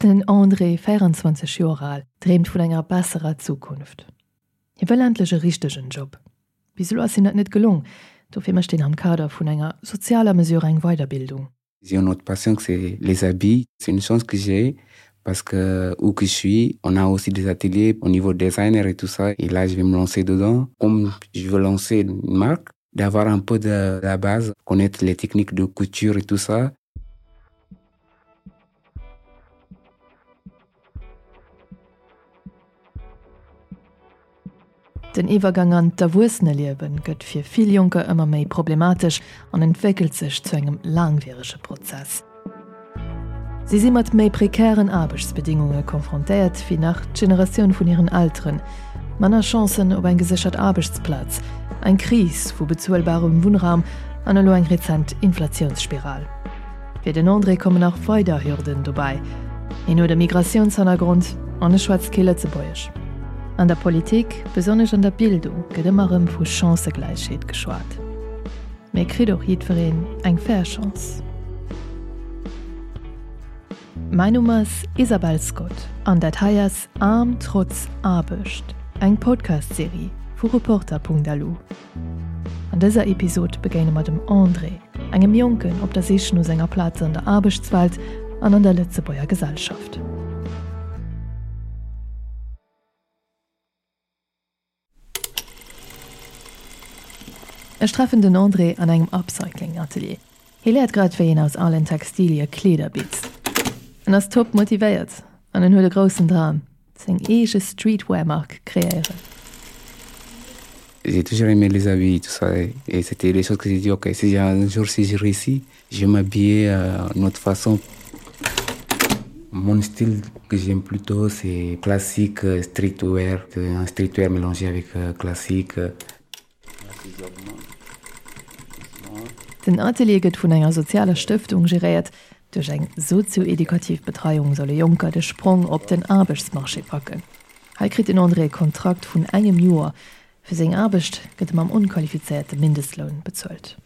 Den André, 24 Joer al, dreemt vun enger besserer Zukunft. Hie wëll endlech e richtegen Job. Bis elo ass him dat net gelong, dofir mécht hien am Kader vun enger sozialer Mesure eng Weiderbildung. J'ai une autre passion que c'est les habits. C'est une chance que j'ai parce que où que je suis, on a aussi des ateliers au niveau designer et tout ça. Et là, je vais me lancer dedans. Comme je veux lancer une marque, d'avoir un peu de la base, connaître les techniques de couture et tout ça. Den Iwwergang an d'Erwuesseneliewe gëtt fir vill Jonker ëmmer méi problematesch an entwéckelt sech zu engem laangwierege Prozess. Si si mat méi prekären Aarbechtsbedingunge konfrontéiert wéi nach d'Generatioun vun hiren Elteren, manner Chancen op eng geséchert Aarbechtsplaz, eng Kris vu bezuelbarem Wunnraum an elo eng rezent Inflatiounsspiral. Fir den André kommen nach weider Hürden dobäi, Hien huet e Migratiounshannergrond an e schwätzt kee Lëtzebuergesch. An der Politik, besonnesch an der Bildung, gëtt ëmmer erëm vu Chancëgläichheet geschwat. Mee kritt och jiddwereen eng fair Chance? Mäin Numm ass Isabel Scott an dat hei ass Aarm trotz Aarbecht, eng Podcast-Serie vu Reporter.lu. An dëser Episod begéine mer dem André, engem Jonken op der Sich no senger Plaz an der Aarbechtswelt an an der Lëtzebuerger Gesellschaft. Ech treffen den André an engem Upcycling-Atelier. Hie léiert grad wéi een aus alen Textilie Kleeder bitzt. En ass top motivéiert an en huet e groussen Dram, seng eege Streetwear-Mark kreéieren. J'ai toujours aimé les habits tout ça et c'était des choses que j'ai dit ok si un jour si je réussis je vais m'habiller euh, une autre façon. Mon style que j'aime plutôt c'est classique euh, streetwear, un streetwear mélangé avec euh, classique. Den Atelier gëtt vun enger sozialer Stëftung geréiert. Duerch eng sozio-edukativ Betreiung solle Jonker de Sprong op den Aarbechtsmarché packen. Hei kritt den André e Kontrakt vun engem Joer. Fir seng Aarbecht gëtt e mam onqualifizéierte Mindestloun bezuelt.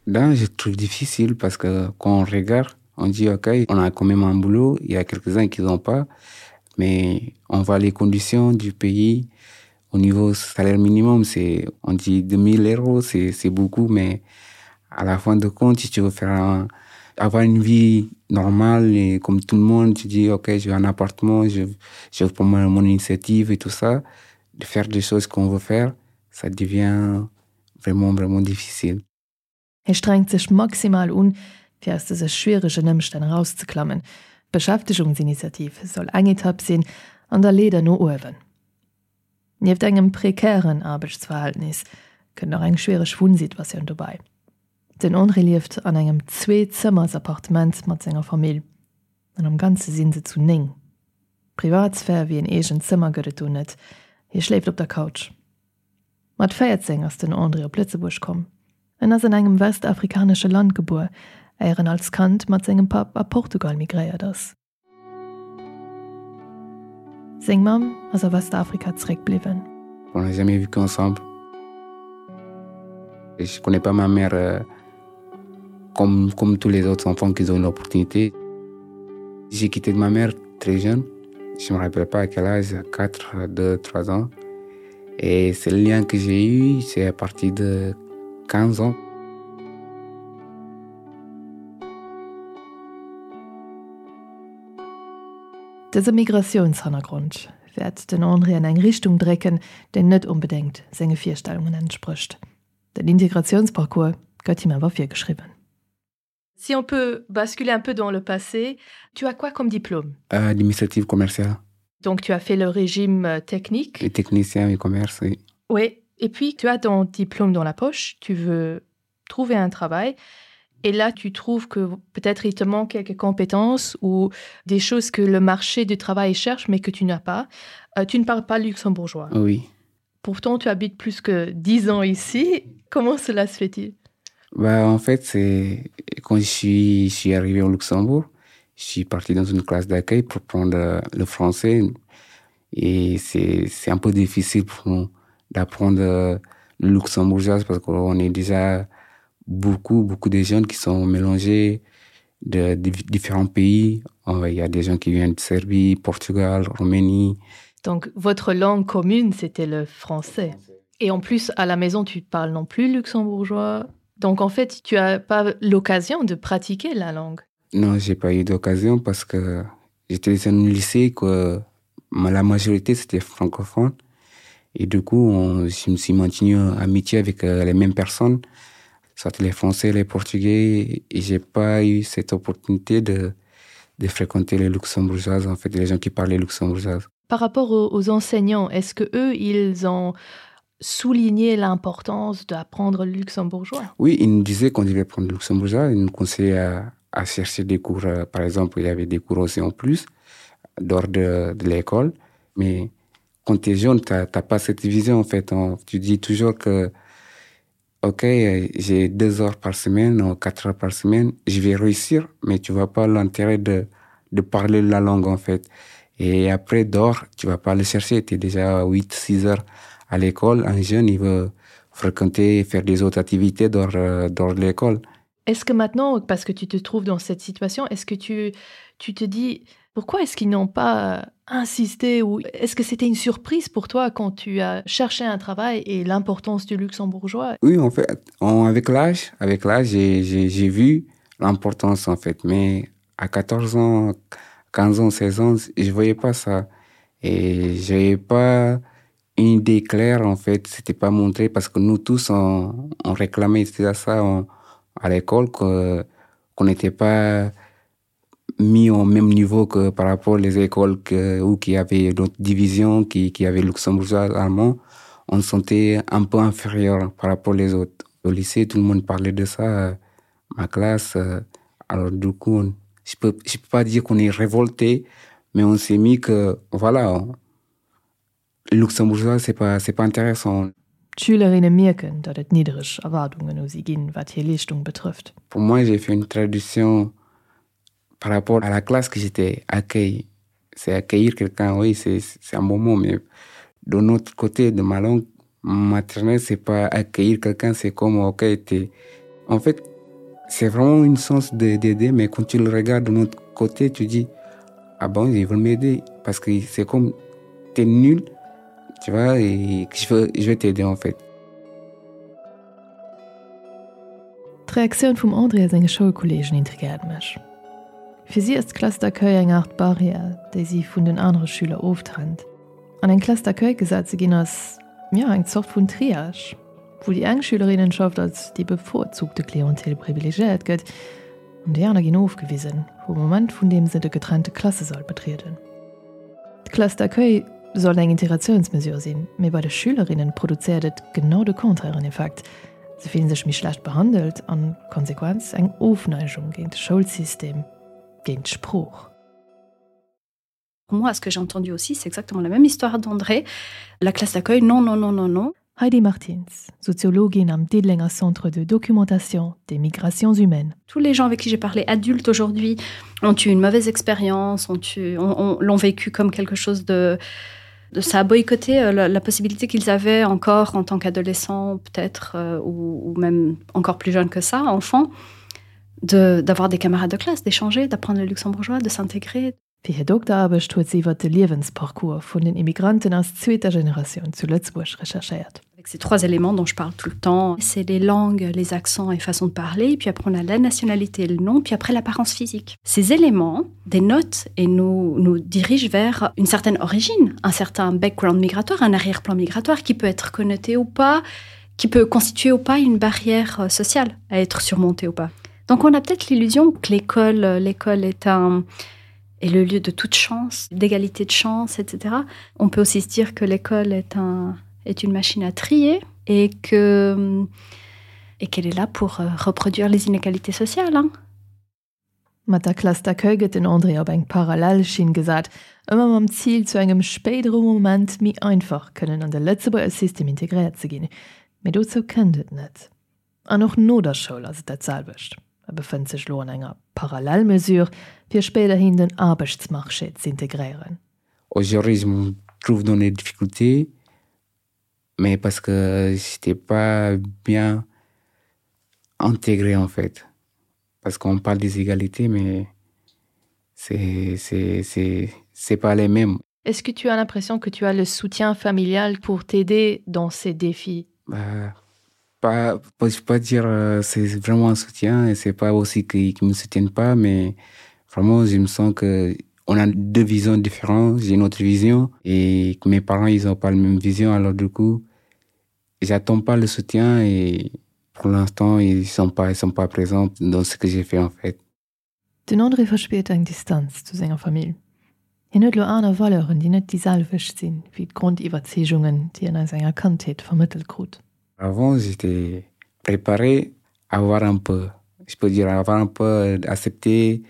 Ben, je trouve difficile parce que quand on regarde, on dit ok, on a quand même un boulot, il y a quelques-uns qui n'ont pas, mais on voit les conditions du pays au niveau salaire minimum, c'est on dit 2000 euros, c'est beaucoup, mais à la fin de compte, si tu veux faire un, avoir une vie normale et comme tout le monde, tu dis ok, je veux un appartement, je, je veux prendre mon initiative et tout ça, de faire des choses qu'on veut faire, ça devient vraiment vraiment difficile. Hie strengt sech maximal un, fir aus dëse schwieregen Ëmstänn erauszeklammen. D'Beschäftegungsinitiativ soll eng Etapp sinn an der Leeder no uewen. Nieft engem prekären Aarbechtsverhältnis kënnt nach eng schwiereg Wunnsituatioun dobäi. Den André lieft an engem Zwee-Zëmmers-Appartement mat senger Famill an am Ganze si se zu 9. Privatsphär wéi en eegent Zëmmer gëtt et do net, hie schléift op der Couch. Mat 14 ass den André op Lëtzebuerg komm. En ass an engem westafrikanesche Land gebuer, éier en als Kand mat sengem Papp a Portugal migréiert ass. Seng Mamm ass a Westafrika zeréckbliwwen. On n'a jamais vécu ensemble. Je connais pas ma mère euh, comme, comme tous les autres enfants qui ont une opportunité. J'ai quitté ma mère très jeune. Je me rappelle pas à quel âge, 4, 2, 3 ans. Et c'est le lien que j'ai eu, c'est à partir de 15 ans. Dëse Migratiounshannergrond wäert den André an eng Richtung drécken, déi net onbedéngt senge Virstellungen entsprécht. Den Integratiounsparcours gëtt him awer virgeschriwwen. Si on peut basculer un peu dans le passé, tu as quoi comme diplôme? Euh, administratif commercial. Donc tu as fait le régime euh, technique. Les techniciens et commerce, oui. Oui, et puis tu as ton diplôme dans la poche, tu veux trouver un travail. Et là, tu trouves que peut-être il te manque quelques compétences ou des choses que le marché du travail cherche, mais que tu n'as pas. Euh, tu ne parles pas luxembourgeois. Oui. Pourtant, tu habites plus que dix ans ici. Comment cela se fait-il bah, En fait, c'est quand je suis, je suis arrivé au Luxembourg, je suis parti dans une classe d'accueil pour prendre euh, le français. Et c'est un peu difficile pour nous d'apprendre euh, le luxembourgeois parce qu'on est déjà beaucoup, beaucoup de jeunes qui sont mélangés. de différents pays. Il y a des gens qui viennent de Serbie, Portugal, Roumanie. Donc votre langue commune, c'était le français. Et en plus, à la maison, tu parles non plus luxembourgeois. Donc en fait, tu as pas l'occasion de pratiquer la langue. Non, j'ai pas eu d'occasion parce que j'étais dans un lycée que la majorité c'était francophone. Et du coup, on, je me suis maintenu amitié avec euh, les mêmes personnes, soit les Français, les Portugais, et j'ai pas eu cette opportunité de, de fréquenter les luxembourgeoises, en fait, les gens qui parlaient luxembourgeoises. Par rapport aux, aux enseignants, est-ce que eux, ils ont souligné l'importance d'apprendre le luxembourgeois? Oui, ils nous disaient qu'on devait prendre le luxembourgeois, ils nous conseillaient à, à chercher des cours, euh, par exemple, il y avait des cours aussi en plus, dehors de, de l'école, mais quand tu es jeune, tu n'as pas cette vision en fait. On, tu dis toujours que ok, j'ai deux heures par semaine ou quatre heures par semaine, je vais réussir, mais tu vois pas l'intérêt de, de parler la langue en fait. Et après, dehors, tu vas pas le chercher. Tu es déjà à 8, 6 heures à l'école. Un jeune, il veut fréquenter, faire des autres activités dehors, euh, dehors de l'école. Est-ce que maintenant, parce que tu te trouves dans cette situation, est-ce que tu, tu te dis pourquoi est-ce qu'ils n'ont pas insisté ou est-ce que c'était une surprise pour toi quand tu as cherché un travail et l'importance du luxembourgeois? Oui, en fait, on, avec l'âge, avec l'âge, j'ai vu l'importance en fait. Mais à 14 ans, 15 ans, 16 ans, je voyais pas ça. Et j'avais pas une idée claire en fait, c'était pas montré parce que nous tous on, on réclamait ça on, à l'école qu'on n'était pas mis au même niveau que par rapport les écoles que, où qui avait d'autres divisions qui, qui avait luxembourgeois allemand on se sentait un peu inférieur par rapport les autres au lycée tout le monde parlait de ça euh, ma classe euh, alors du coup on, je peux je peux pas dire qu'on est révolté mais on s'est mis que voilà on, luxembourgeois c'est pas c'est pas intéressant D'Schülerinne mierken, datt et niddereg Erwaardungen u si ginn, wat hir Leeschtung betrëfft. Pour moi, j'ai fait une traduction par rapport à la classe que j'étais accueilli. C'est accueillir quelqu'un, oui, c'est un bon mot, mais de notre côté, de ma langue maternelle, c'est pas accueillir quelqu'un, c'est comme, ok, t'es... En fait, c'est vraiment une sens d'aider, mais quand tu le regardes de notre côté, tu dis, ah bon, ils veulent m'aider, parce que c'est comme, t'es nul, tu vois, et je veux, je vais t'aider en fait. D'Reaktioun vum André a senge Schoulkolleegen intrigéiert mech. Fir si ass d'Classe d'accueil eng Aart Barrière, déi si vun den anere Schüler oftrennt. An eng Classe d'accueil gesat ze ginn ass, jo, eng Zort vun Triage, wou déi eng Schülerinnenschaft als déi bevorzugte Clientèle privilegiéiert gëtt an déi aner ginn ofgewisen, vum Moment vun deem se de getrennte Klassesall betrieden. D'Classe d'accueil soll eng Integratiounsmesure sinn, mee bei de Schülerinnen produzéiert et genau de contrairen Effekt, Se fillen sech méi schlecht behandelt an, Konsequenz, eng Ofneigung géint de Schoulsystem, géint d'Sprooch. Moi, ce que j'ai entendu aussi, c'est exactement la même histoire d'André. La classe d'accueil, non, non, non, non, non. Heidi Martins, Soziologin am Diddelenger Centre de documentation des migrations humaines. Tous les gens avec qui j'ai parlé adultes aujourd'hui ont eu une mauvaise expérience, ont eu, ont, ont, l'ont vécu comme quelque chose de, de ça a boycotté euh, la, la possibilité qu'ils avaient encore en tant qu'adolescent peut-être euh, ou, ou même encore plus jeune que ça, enfant, d'avoir des camarades de classe, d'échanger, d'apprendre le luxembourgeois, de s'intégrer. Fir hir Dokteraarbecht huet si iwwer de Liewensparcours vun den Immigranten aus zweeter Generatioun zu Lëtzebuerg recherchéiert. Avec ces trois éléments dont je parle tout le temps, c'est les langues, les accents et façons de parler, puis après on a la nationalité et le nom, puis après l'apparence physique. Ces éléments dénotent et nous, nous dirigent vers une certaine origine, un certain background migratoire, un arrière-plan migratoire qui peut être connoté ou pas, qui peut constituer ou pas une barrière euh, sociale à être surmontée ou pas. Donc on a peut-être l'illusion que l'école euh, l'école est un est le lieu de toute chance, d'égalité de chance, etc. On peut aussi se dire que l'école est un est une machine à trier et que et qu'elle est là pour euh, reproduire les inégalités sociales. Hein. Mat der Classe d'accueil gëtt den André op eng parallel Schinn gesat, ëmmer mam Zil, zu engem spéidere Moment méi einfach kënnen an de Lëtzebuerger System integréiert ze ginn. Mee dozou kënnt et net. An och no der Schoul ass et dat selwecht. E befënnt sech elo an enger Parallelmesure, fir spéiderhin den Aarbechtsmarché z'integréieren. Aujourd'hui, je me trouve dans des difficultés, mais parce que j'étais pas bien intégré en fait. Parce qu'on parle des égalités, mais c'est pas les mêmes. Est-ce que tu as l'impression que tu as le soutien familial pour t'aider dans ces défis bah, pas, pas, je peux pas dire euh, c'est vraiment un soutien et c'est pas aussi qu'ils qu me soutiennent pas mais vraiment je me sens que on a deux visions différentes j'ai une autre vision et que mes parents ils ont pas la même vision alors du coup j'attends pas le soutien et pour l'instant ils sont pas ils sont pas présents dans ce que j'ai fait en fait Den André verspiert eng Distanz zu senger Famill. Hien huet lo aner Valeuren, déi net déi selwecht sinn wéi d'Grondiwwerzeegungen, déi en a senger Kandheet vermëttelt krut. Avant j'étais préparé à avoir un peu, je peux dire avoir un peu accepté.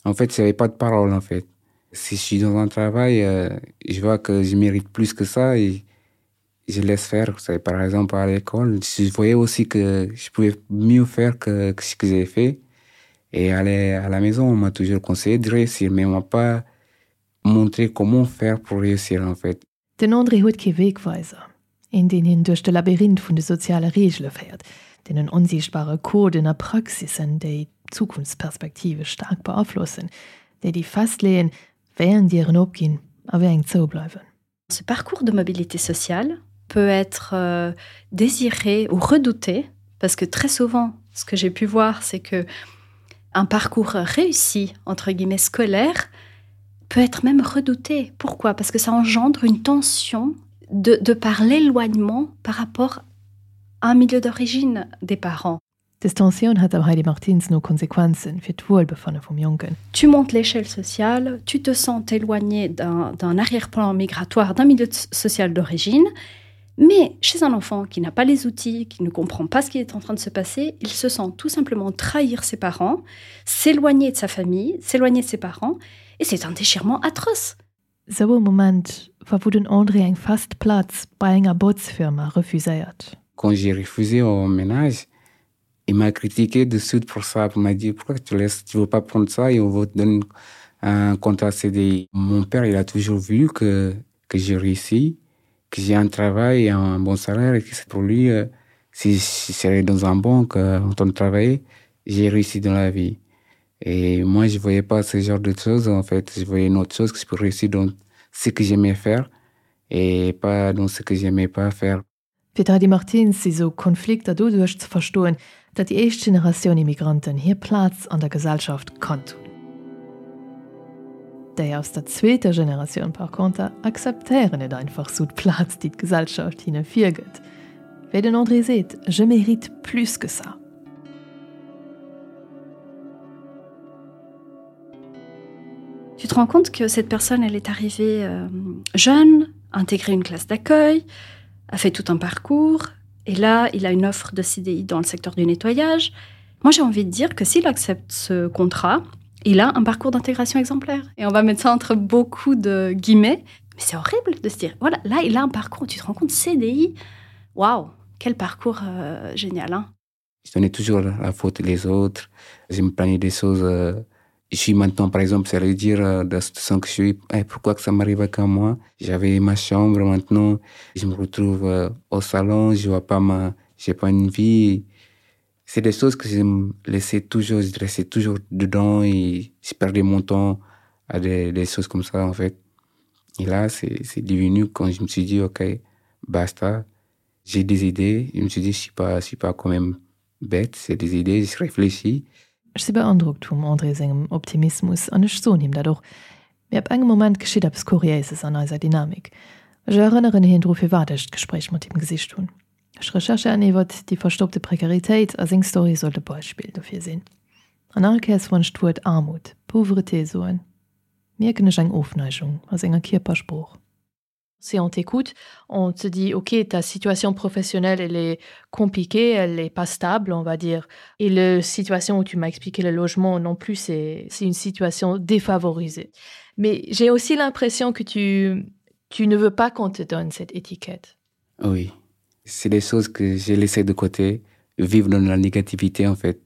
En fait, j'avais pas de parole en fait. Si je suis dans un travail, euh, je vois que je mérite plus que ça et je laisse faire. Par exemple à l'école, je voyais aussi que je pouvais mieux faire que, que ce que j'ai fait. Et aller à la maison, on m'a toujours conseillé de réussir, mais on m'a pas montré comment faire pour réussir en fait. Den André huet kee Wegweiser, een deen hien duerch de Labyrinth vun de soziale Reegele féiert, deenen onsiichtbare Coden a Praxissen, déi d'Zukunftsperspektive staark beaflossen, déi déi festleeën, wéi eng Dieren opginn a wéi eng zoubleiwen. Ce parcours de mobilité sociale peut être euh, désiré ou redouté parce que très souvent ce que j'ai pu voir c'est que un parcours réussi entre guillemets scolaire peut être même redouté pourquoi parce que ça engendre une tension de, de par l'éloignement par rapport à un milieu d'origine des parents Dës Tensioun hat der Heidi Martins no Konsequenzen fir d'Wuelbefanne vum Jonken. Tu montes l'échelle sociale, tu te sens éloigné d'un arrière-plan migratoire d'un milieu social d'origine, mais chez un enfant qui n'a pas les outils, qui ne comprend pas ce qui est en train de se passer, il se sent tout simplement trahir ses parents, s'éloigner de sa famille, s'éloigner de ses parents, et c'est un déchirement atroce. Sou e Moment war wou den André eng fest Plaz bei enger Botzfirma refuséiert. Quand j'ai refusé au ménage, il m'a critiqué de suite pour ça, il m'a dit pourquoi tu laisses, tu veux pas prendre ça et on va te donner un contrat CDI. Mon père, il a toujours vu que, que j'ai réussi, que j'ai un travail et un bon salaire et que c'est pour lui, euh, si je serais dans un banque euh, en train de travailler, j'ai réussi dans la vie. Et moi, je voyais pas ce genre de choses, en fait. Je voyais une autre chose que je pourrais réussir dans ce que j'aimais faire et pas dans ce que j'aimais pas faire. Fir d'Heidi Martins si sou Konflikter doduerch ze verstoen, datt déi éischt Generatioun Immigranten hir Plaz an der Gesellschaft kannt hunn. Déi aus der zweeter Generatioun par conter akzeptéieren net einfach sou d'Plaz, déi d'Gesellschaft hinne virgëtt. Wéi den André seet, Je mérite plus que ça. Tu te rends compte que cette personne, elle est arrivée euh, jeune, intégrée une classe d'accueil, a fait tout un parcours, et là, il a une offre de CDI dans le secteur du nettoyage. Moi, j'ai envie de dire que s'il accepte ce contrat, il a un parcours d'intégration exemplaire. Et on va mettre ça entre beaucoup de guillemets. Mais c'est horrible de se dire, voilà, là, il a un parcours, tu te rends compte, CDI, waouh, quel parcours euh, génial. Hein. Je donnais toujours la faute les autres, je me plaignais des choses. Euh, je suis maintenant, par exemple, ça veut dire euh, dans la situation que je suis, hey, pourquoi que ça m'arrive qu'à moi J'avais ma chambre maintenant, je me retrouve euh, au salon, je vois pas ma, j'ai pas une vie. C'est des choses que je me laissais toujours, je restais toujours dedans et je perdais mon temps à des, des choses comme ça en fait. Et là, c'est devenu quand je me suis dit, ok, basta, j'ai des idées, je me suis dit, je suis pas, je suis pas quand même bête, c'est des idées, je réfléchis. Ech si beandrockt vum André sengem Optimismus an ech soen him dat och. Mee ab engem Moment geschitt eppes Kuriéises an eiser Dynamik. Ech erënneren hien dru firwat ech d'Gespréich mat him gesicht hunn. Ech recherchéieren iwwert déi verstoppte Prekaritéit a seng Story sollt e Beispill dofir sinn. An all Kéiers wann ech d'Wuert Aarmut, Pauvreté soen, mierken ech eng Ofneigung a senger Kierpersprooch. Si on t'écoute, on te dit ok, ta situation professionnelle elle est compliquée, elle est pas stable, on va dire. Et la situation où tu m'as expliqué le logement non plus, c'est une situation défavorisée. Mais j'ai aussi l'impression que tu, tu ne veux pas qu'on te donne cette étiquette. Oui, c'est des choses que j'ai laissées de côté, vivre dans la négativité en fait.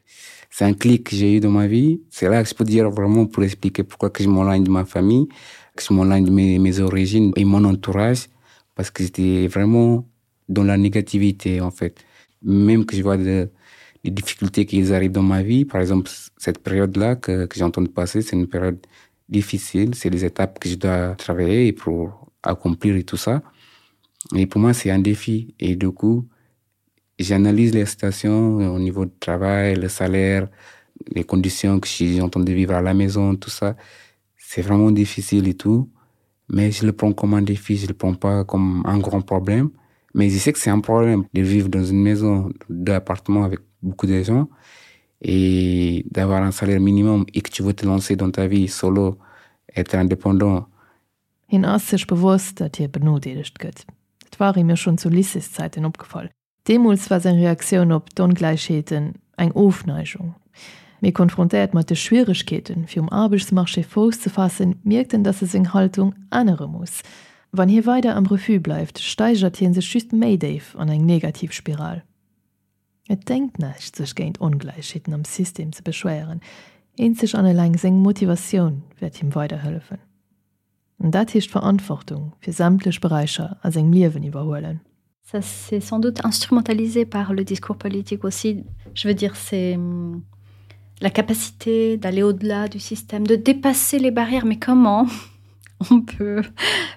C'est un clic que j'ai eu dans ma vie. C'est là que je peux dire vraiment pour expliquer pourquoi que je m'enligne de ma famille, que je m'enligne de mes, mes origines et mon entourage, parce que j'étais vraiment dans la négativité en fait. Même que je vois de, les difficultés qui arrivent dans ma vie. Par exemple, cette période-là que, que j'entends passer, c'est une période difficile, c'est les étapes que je dois travailler pour accomplir et tout ça. Et pour moi, c'est un défi. Et du coup, j'analyse les situations au niveau du travail, le salaire, les conditions que j'ai entendu vivre à la maison, tout ça. C'est vraiment difficile et tout. Mais je le prends comme un défi, je le prends pas comme un grand problème. Mais je sais que c'est un problème de vivre dans une maison d'appartement avec beaucoup de gens et d'avoir un salaire minimum et que tu veux te lancer dans ta vie solo, être indépendant. Hien ass sech bewosst, datt hie benodeelegt gëtt. Dat war him jo schonn zu Lycéeszäiten opgefall. Deemools war seng Reaktioun op d'Ongläichheeten eng Ofneigung. Mee konfrontéiert mat de Schwieregkeeten, fir um Aarbechtsmarché Fouss ze faassen, mierkt en, datt e seng Haltung ännere muss. Wann hie weider am Refus bleift, steigert hie sech just méi déif an eng negativ Spiral. Et déngt näischt, sech géint Ongläichheeten am System ze beschwéieren, eenzeg an eleng seng Motivatioun wäert him weiderhëllefen. An dat heescht Verantwortung fir sämtlech Beräicher a sengem Liewen iwwerhuelen. Ça c'est sans doute instrumentalisé par le discours politique aussi. Je veux dire c'est la capacité d'aller au-delà du système, de dépasser les barrières, mais comment on peut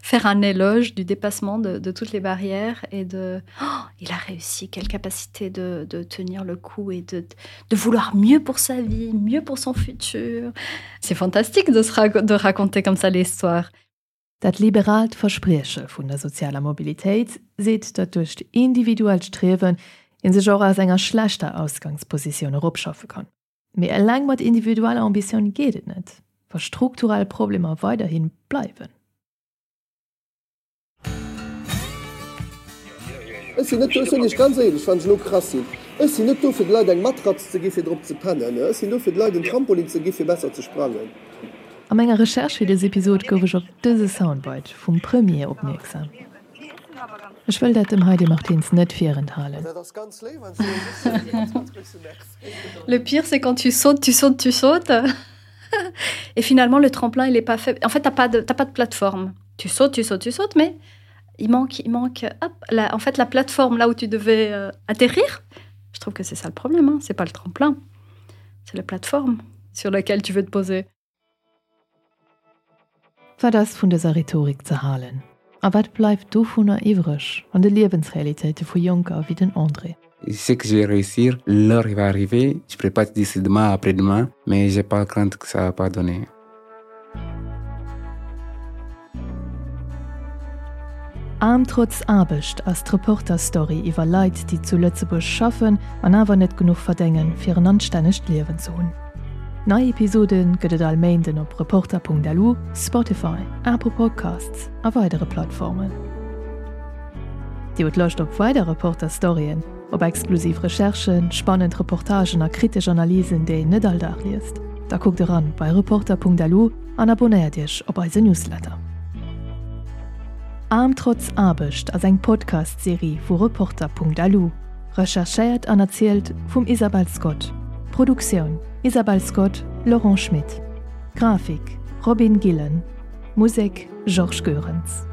faire un éloge du dépassement de, de toutes les barrières et de oh, il a réussi, quelle capacité de, de tenir le coup et de, de vouloir mieux pour sa vie, mieux pour son futur. C'est fantastique de, se rac de raconter comme ça l'histoire. Dat liberaalt Versprieche vun der sozialer Mobilitéit seet, datt duerch d'individuellt Striewen ee sech och aus enger schlechter Ausgangspositioun eropschaffe kann. Mee eleng mat individueller Ambitioun geet et net, wa strukturell Problemer weiderhi bleiwen. Ech sinn net do, ech soen Iech ganz éierlech, wann ech elo krass sinn, ech sinn net do fir de Leit eng Matratz ze gi fir drop ze pennen, ech sinn do fir de Leit en Trampolin ze gi fir besser ze sprangen. A menger Recherche fir dës Episod gouf ech op dëse Soundbite vum Premier opmierksam. Ech wëll dat dem Heidi Martins net virenthalen. Le pire c'est quand tu sautes, tu sautes, tu sautes et finalement le tremplin il est pas fait. En fait t'as pas de, t'as pas de plateforme. Tu sautes, tu sautes, tu sautes, mais il manque, il manque hop, la, en fait la plateforme là où tu devais euh, atterrir. Je trouve que c'est ça le problème, hein. c'est pas le tremplin, c'est la plateforme sur laquelle tu veux te poser. Wat ass vun dëser Rhetorik ze halen? A wat bleift dovunner iwwreg an de Liewensrealitéite vu Jonker wéi den André? Je sais que je vais réussir, l'heure va arriver, je pourrais pas te dire c'est demain, après-demain, mais j'ai pas crainte que ça va pas donner. Aarm trotz Aarbecht ass d'Reporter-Story iwwer Leit, déi zu Lëtzebuerg schaffen an awer net genuch verdéngen, fir en anstännegt Liewen ze hunn. Nei Episode gëtt et all Méinden op Reporter.lu, Spotify, Apple Podcasts a weidere Plattformen. Dir hutt Loscht op weider Reporter-Storyen, op exklusiv Recherchen, spannend Reportagen a kritesch Analysen, déi een net all Dag liest? Da kuckt eran bei Reporter.lu an abonnéiert iech op eise Newsletter. Aarm trotz Aarbecht ass eng Podcast-Serie vu Reporter.lu, recherchéiert an erzielt vum Isabelle Scott. Produktioun, Isabelle Scott, Laurent Schmit. Grafik, Robin Gillen. Musek, Georges Goerens.